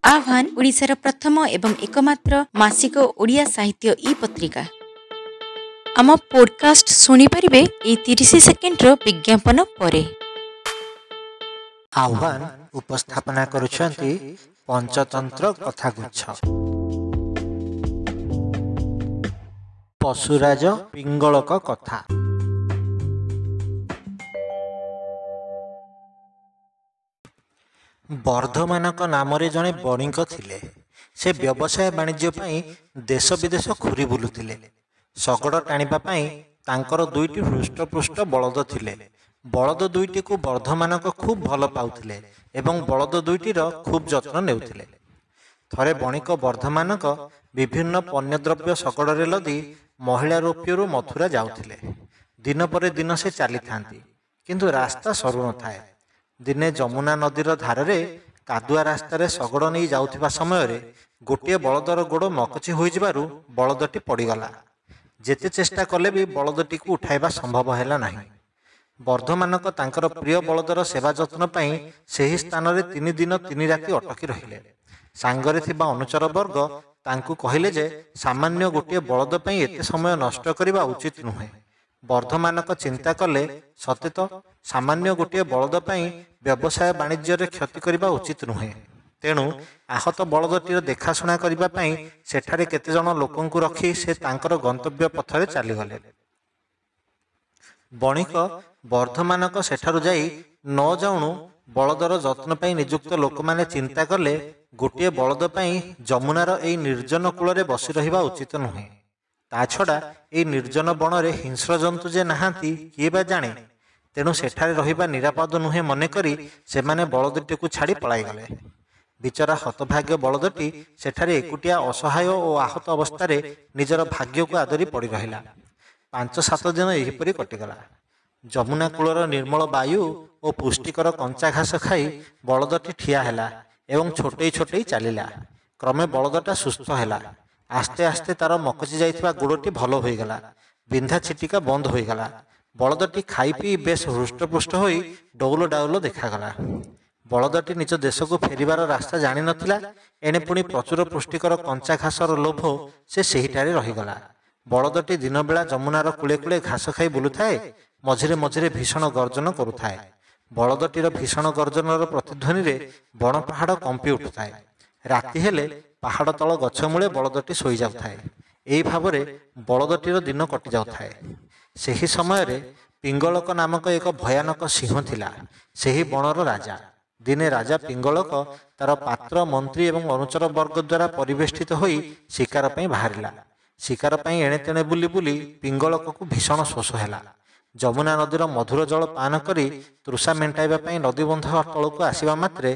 ଆହ୍ୱାନ ଓଡ଼ିଶାର ପ୍ରଥମ ଏବଂ ଏକମାତ୍ର ମାସିକ ଓଡ଼ିଆ ସାହିତ୍ୟ ଇ ପତ୍ରିକା। ଆମ ପୋଡକାଷ୍ଟ ଶୁଣିପାରିବେ ଏଇ 30 ସେକେଣ୍ଡର ବିଜ୍ଞାପନ ପରେ। ଆହ୍ୱାନ ଉପସ୍ଥାପନା କରୁଛନ୍ତି ପଞ୍ଚତନ୍ତ୍ର କଥାଗୁଚ୍ଛ। ପଶୁରାଜ ପିଙ୍ଗଳକ କଥା। ବର୍ଦ୍ଧମାନଙ୍କ ନାମରେ ଜଣେ ବଣିକ ଥିଲେ। ସେ ବ୍ୟବସାୟ ବାଣିଜ୍ୟ ପାଇଁ ଦେଶ ବିଦେଶ ଘୂରି ବୁଲୁଥିଲେ। ଶଗଡ଼ ଟାଣିବା ପାଇଁ ତାଙ୍କର ଦୁଇଟି ହୃଷ୍ଟପୃଷ୍ଟ ବଳଦ ଥିଲେ। ବଳଦ ଦୁଇଟିକୁ ବର୍ଦ୍ଧମାନଙ୍କ ଖୁବ୍ ଭଲ ପାଉଥିଲେ ଏବଂ ବଳଦ ଦୁଇଟିର ଖୁବ୍ ଯତ୍ନ ନେଉଥିଲେ। ଥରେ ବଣିକ ବର୍ଦ୍ଧମାନଙ୍କ ବିଭିନ୍ନ ପଣ୍ୟଦ୍ରବ୍ୟ ଶଗଡ଼ରେ ଲଦି ମହିଳା ରୌପ୍ୟରୁ ମଥୁରା ଯାଉଥିଲେ। ଦିନ ପରେ ଦିନ ସେ ଚାଲିଥାନ୍ତି, କିନ୍ତୁ ରାସ୍ତା ସରୁନଥାଏ। ଦିନେ ଯମୁନା ନଦୀର ଧାରରେ କାଦୁଆ ରାସ୍ତାରେ ଶଗଡ଼ ନେଇ ଯାଉଥିବା ସମୟରେ ଗୋଟିଏ ବଳଦର ଗୋଡ଼ ମକଚି ହୋଇଯିବାରୁ ବଳଦଟି ପଡ଼ିଗଲା। ଯେତେ ଚେଷ୍ଟା କଲେ ବି ବଳଦଟିକୁ ଉଠାଇବା ସମ୍ଭବ ହେଲା ନାହିଁ। ବର୍ଦ୍ଧମାନଙ୍କ ତାଙ୍କର ପ୍ରିୟ ବଳଦର ସେବା ଯତ୍ନ ପାଇଁ ସେହି ସ୍ଥାନରେ 3 ଦିନ 3 ରାତି ଅଟକି ରହିଲେ। ସାଙ୍ଗରେ ଥିବା ଅନୁଚର ବର୍ଗ ତାଙ୍କୁ କହିଲେ ଯେ ସାମାନ୍ୟ ଗୋଟିଏ ବଳଦ ପାଇଁ ଏତେ ସମୟ ନଷ୍ଟ କରିବା ଉଚିତ ନୁହେଁ। ବର୍ଦ୍ଧମାନଙ୍କ ଚିନ୍ତା କଲେ, ସତେ ତ ସାମାନ୍ୟ ଗୋଟିଏ ବଳଦ ପାଇଁ ବ୍ୟବସାୟ ବାଣିଜ୍ୟରେ କ୍ଷତି କରିବା ଉଚିତ ନୁହେଁ। ତେଣୁ ଆହତ ବଳଦଟିର ଦେଖାଶୁଣା କରିବା ପାଇଁ ସେଠାରେ କେତେଜଣ ଲୋକଙ୍କୁ ରଖି ସେ ତାଙ୍କର ଗନ୍ତବ୍ୟ ପଥରେ ଚାଲିଗଲେ। ବଣିକ ବର୍ଦ୍ଧମାନଙ୍କ ସେଠାରୁ ଯାଇ ନ ଯାଉଣୁ ବଳଦର ଯତ୍ନ ପାଇଁ ନିଯୁକ୍ତ ଲୋକମାନେ ଚିନ୍ତା କଲେ, ଗୋଟିଏ ବଳଦ ପାଇଁ ଯମୁନାର ଏଇ ନିର୍ଜନ କୂଳରେ ବସି ରହିବା ଉଚିତ ନୁହେଁ। ତା ଛଡ଼ା ଏଇ ନିର୍ଜନ ବଣରେ ହିଂସ୍ର ଜନ୍ତୁ ଯେ ନାହାନ୍ତି କିଏ ବା ଜାଣେ। ତେଣୁ ସେଠାରେ ରହିବା ନିରାପଦ ନୁହେଁ ମନେକରି ସେମାନେ ବଳଦଟିକୁ ଛାଡ଼ି ପଳାଇଗଲେ। ବିଚରା ହତଭାଗ୍ୟ ବଳଦଟି ସେଠାରେ ଏକୁଟିଆ ଅସହାୟ ଓ ଆହତ ଅବସ୍ଥାରେ ନିଜର ଭାଗ୍ୟକୁ ଆଦରି ପଡ଼ି ରହିଲା। 5-7 ଦିନ ଏହିପରି କଟିଗଲା। ଯମୁନା କୂଳର ନିର୍ମଳ ବାୟୁ ଓ ପୁଷ୍ଟିକର କଞ୍ଚା ଘାସ ଖାଇ ବଳଦଟି ଠିଆ ହେଲା ଏବଂ ଛୋଟେଇ ଛୋଟେଇ ଚାଲିଲା। କ୍ରମେ ବଳଦଟା ସୁସ୍ଥ ହେଲା। ଆସ୍ତେ ଆସ୍ତେ ତାର ମକଚି ଯାଇଥିବା ଗୋଡ଼ଟି ଭଲ ହୋଇଗଲା। ବିନ୍ଧା ଛିଟିକା ବନ୍ଦ ହୋଇଗଲା। ବଳଦଟି ଖାଇ ପିଇ ବେଶ ହୃଷ୍ଟପୃଷ୍ଟ ହୋଇ ଡଉଲ ଡାଉଲ ଦେଖାଗଲା। ବଳଦଟି ନିଜ ଦେଶକୁ ଫେରିବାର ରାସ୍ତା ଜାଣିନଥିଲା। ଏଣେ ପୁଣି ପ୍ରଚୁର ପୁଷ୍ଟିକର କଞ୍ଚା ଘାସର ଲୋଭ ସେ ସେହିଠାରେ ରହିଗଲା। ବଳଦଟି ଦିନବେଳା ଯମୁନାର କୂଳେ କୂଳେ ଘାସ ଖାଇ ବୁଲୁଥାଏ, ମଝିରେ ମଝିରେ ଭୀଷଣ ଗର୍ଜନ କରୁଥାଏ। ବଳଦଟିର ଭୀଷଣ ଗର୍ଜନର ପ୍ରତିଧ୍ୱନିରେ ବଣ ପାହାଡ଼ କମ୍ପି ଉଠୁଥାଏ। ରାତି ହେଲେ ପାହାଡ଼ ତଳ ଗଛ ମୂଳେ ବଳଦଟି ଶୋଇଯାଉଥାଏ। ଏହି ଭାବରେ ବଳଦଟିର ଦିନ କଟିଯାଉଥାଏ। ସେହି ସମୟରେ ପିଙ୍ଗଳକ ନାମକ ଏକ ଭୟାନକ ସିଂହ ଥିଲା ସେହି ବଣର ରାଜା। ଦିନେ ରାଜା ପିଙ୍ଗଳକ ତାର ପାତ୍ର, ମନ୍ତ୍ରୀ ଏବଂ ଅନୁଚର ବର୍ଗ ଦ୍ୱାରା ପରିବେଷ୍ଟିତ ହୋଇ ଶିକାର ପାଇଁ ବାହାରିଲା। ଶିକାର ପାଇଁ ଏଣେ ତେଣେ ବୁଲି ବୁଲି ପିଙ୍ଗଳକକୁ ଭୀଷଣ ଶୋଷ ହେଲା। ଯମୁନା ନଦୀର ମଧୁର ଜଳ ପାନ କରି ତୃଷା ମେଣ୍ଟାଇବା ପାଇଁ ନଦୀବନ୍ଧ ତଳକୁ ଆସିବା ମାତ୍ରେ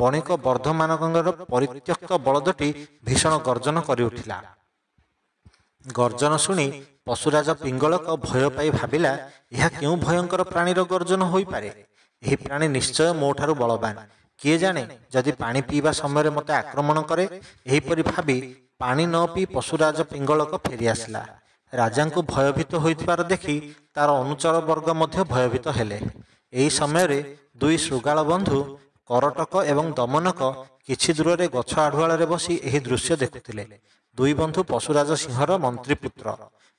ବଣିକ ବର୍ଦ୍ଧମାନଙ୍କର ପରିତ୍ୟକ୍ତ ବଳଦଟି ଭୀଷଣ ଗର୍ଜନ କରିଉଠିଲା। ଗର୍ଜନ ଶୁଣି ପଶୁରାଜ ପିଙ୍ଗଳକ ଭୟ ପାଇ ଭାବିଲା, ଏହା କେଉଁ ଭୟଙ୍କର ପ୍ରାଣୀର ଗର୍ଜନ ହୋଇପାରେ? ଏହି ପ୍ରାଣୀ ନିଶ୍ଚୟ ମୋଠାରୁ ବଳବାନ। କିଏ ଜାଣେ ଯଦି ପାଣି ପିଇବା ସମୟରେ ମୋତେ ଆକ୍ରମଣ କରେ। ଏହିପରି ଭାବି ପାଣି ନ ପିଇ ପଶୁରାଜ ପିଙ୍ଗଳକ ଫେରିଆସିଲା। ରାଜାଙ୍କୁ ଭୟଭୀତ ହୋଇଥିବାର ଦେଖି ତାର ଅନୁଚର ବର୍ଗ ମଧ୍ୟ ଭୟଭୀତ ହେଲେ। ଏହି ସମୟରେ ଦୁଇ ଶୃଗାଳ ବନ୍ଧୁ କରଟକ ଏବଂ ଦମନକ କିଛି ଦୂରରେ ଗଛ ଆଢୁଆଳରେ ବସି ଏହି ଦୃଶ୍ୟ ଦେଖୁଥିଲେ। ଦୁଇ ବନ୍ଧୁ ପଶୁରାଜ ସିଂହର ମନ୍ତ୍ରୀପୁତ୍ର।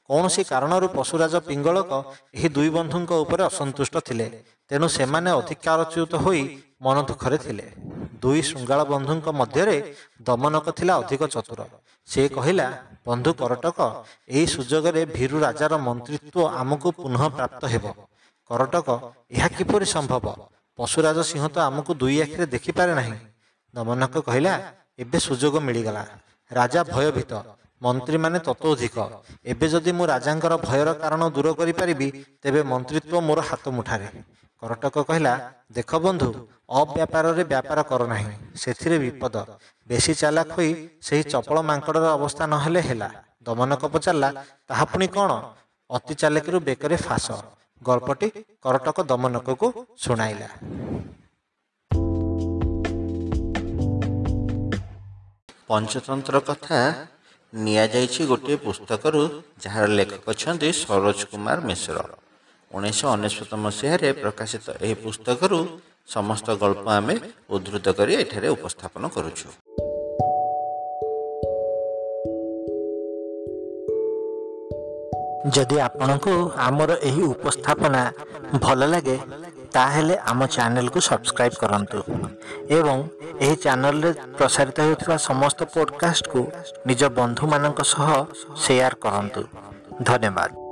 କୌଣସି କାରଣରୁ ପଶୁରାଜ ପିଙ୍ଗଳକ ଏହି ଦୁଇ ବନ୍ଧୁଙ୍କ ଉପରେ ଅସନ୍ତୁଷ୍ଟ ଥିଲେ। ତେଣୁ ସେମାନେ ଅଧିକାରଚ୍ୟୁତ ହୋଇ ମନ ଦୁଃଖରେ ଥିଲେ। ଦୁଇ ଶୃଗାଳ ବନ୍ଧୁଙ୍କ ମଧ୍ୟରେ ଦମନକ ଥିଲା ଅଧିକ ଚତୁର। ସେ କହିଲା, ବନ୍ଧୁ କରଟକ, ଏହି ସୁଯୋଗରେ ଭୀରୁ ରାଜାର ମନ୍ତ୍ରିତ୍ୱ ଆମକୁ ପୁନଃ ପ୍ରାପ୍ତ ହେବ। କରଟକ, ଏହା କିପରି ସମ୍ଭବ? ପଶୁରାଜ ସିଂହ ତ ଆମକୁ ଦୁଇ ଆଖିରେ ଦେଖିପାରେ ନାହିଁ। ଦମନକ କହିଲା, ଏବେ ସୁଯୋଗ ମିଳିଗଲା। ରାଜା ଭୟଭୀତ, ମନ୍ତ୍ରୀମାନେ ତତୋଧିକ। ଏବେ ଯଦି ମୁଁ ରାଜାଙ୍କର ଭୟର କାରଣ ଦୂର କରିପାରିବି, ତେବେ ମନ୍ତ୍ରିତ୍ୱ ମୋର ହାତ ମୁଠାରେ। କରଟକ କହିଲା, ଦେଖ ବନ୍ଧୁ, ଅବ୍ୟାପାରରେ ବ୍ୟାପାର କର ନାହିଁ, ସେଥିରେ ବିପଦ। ବେଶୀ ଚାଲାକ ହୋଇ ସେହି ଚପଳ ମାଙ୍କଡ଼ର ଅବସ୍ଥା ନହେଲେ ହେଲା। ଦମନକ ପଚାରିଲା, ତାହା ପୁଣି କ'ଣ? ଅତି ଚାଲାକିରୁ ବେକରେ ଫାଶ। ଗଳ୍ପଟି କରଟକ ଦମନକକୁ ଶୁଣାଇଲା। ପଞ୍ଚତନ୍ତ୍ର କଥା ନିଆଯାଇଛି ଗୋଟିଏ ପୁସ୍ତକରୁ, ଯାହାର ଲେଖକ ଅଛନ୍ତି ସରୋଜ କୁମାର ମିଶ୍ର। 1999 ମସିହାରେ ପ୍ରକାଶିତ ଏହି ପୁସ୍ତକରୁ ସମସ୍ତ ଗଳ୍ପ ଆମେ ଉଦ୍ଧୃତ କରି ଏଠାରେ ଉପସ୍ଥାପନ କରୁଛୁ। ଯଦି ଆପଣଙ୍କୁ ଆମର ଏହି ଉପସ୍ଥାପନା ଭଲ ଲାଗେ, ତାହେଲେ ଆମ ଚ୍ୟାନେଲକୁ ସବସ୍କ୍ରାଇବ୍ କରନ୍ତୁ ଏବଂ ଏହି ଚ୍ୟାନେଲରେ ପ୍ରସାରିତ ହେଉଥିବା ସମସ୍ତ ପଡ଼କାଷ୍ଟକୁ ନିଜ ବନ୍ଧୁମାନଙ୍କ ସହ ସେୟାର କରନ୍ତୁ। ଧନ୍ୟବାଦ।